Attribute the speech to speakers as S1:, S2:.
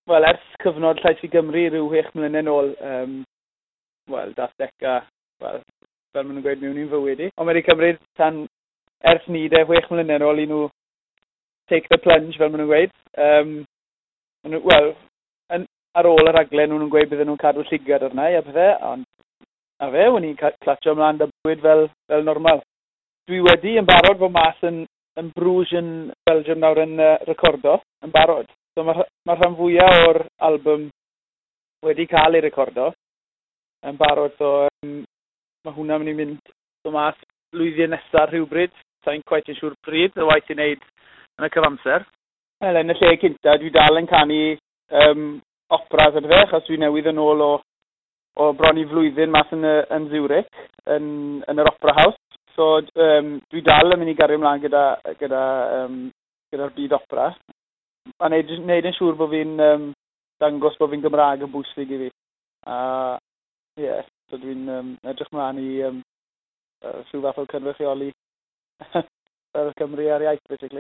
S1: Wel, ers cyfnod Llais i Gymru rhyw 6 mlynedd nôl, wel, dath Beca, wel, fel maen nhw'n gweud, mewn i'n fywyd i. Ond mae wedi cymryd tan ers ni de, 6 mlynedd nôl i nhw take the plunge, fel maen nhw'n gweud. Wel, ar ôl y rhaglen, nhw'n gweud bydden nhw'n cadw llygad arna i a pethau, ond a fe, o'n i'n clatsio ymlaen 'da bywyd fel normal. Dwi wedi yn barod fod mas yn Bruges yn Belgium nawr yn recordo, yn barod. So mae rhan fwyaf o'r album wedi cael ei recordo yn barod, so mae hwnna'n mynd i mynd so mas blwyddyn nesaf rhywbryd. Sa'n quite yn siŵr pryd, y waith i wneud yn y cyfamser. Wel, yn y lle cynta, dwi dal yn canu operas a pethau, achos dwi newydd yn ôl o bron i flwyddyn mas yn Zurich, yn yr Opera House. So dwi dal yn mynd i gario ymlaen gyda'r byd opera. A neud yn siŵr bod fi'n dangos bod fi'n Gymraeg yn bwysig i fi. A ie, yeah, so dwi'n edrych mlaen i rhyw fath o cynrychioli fel Cymru a'r iaith, basically.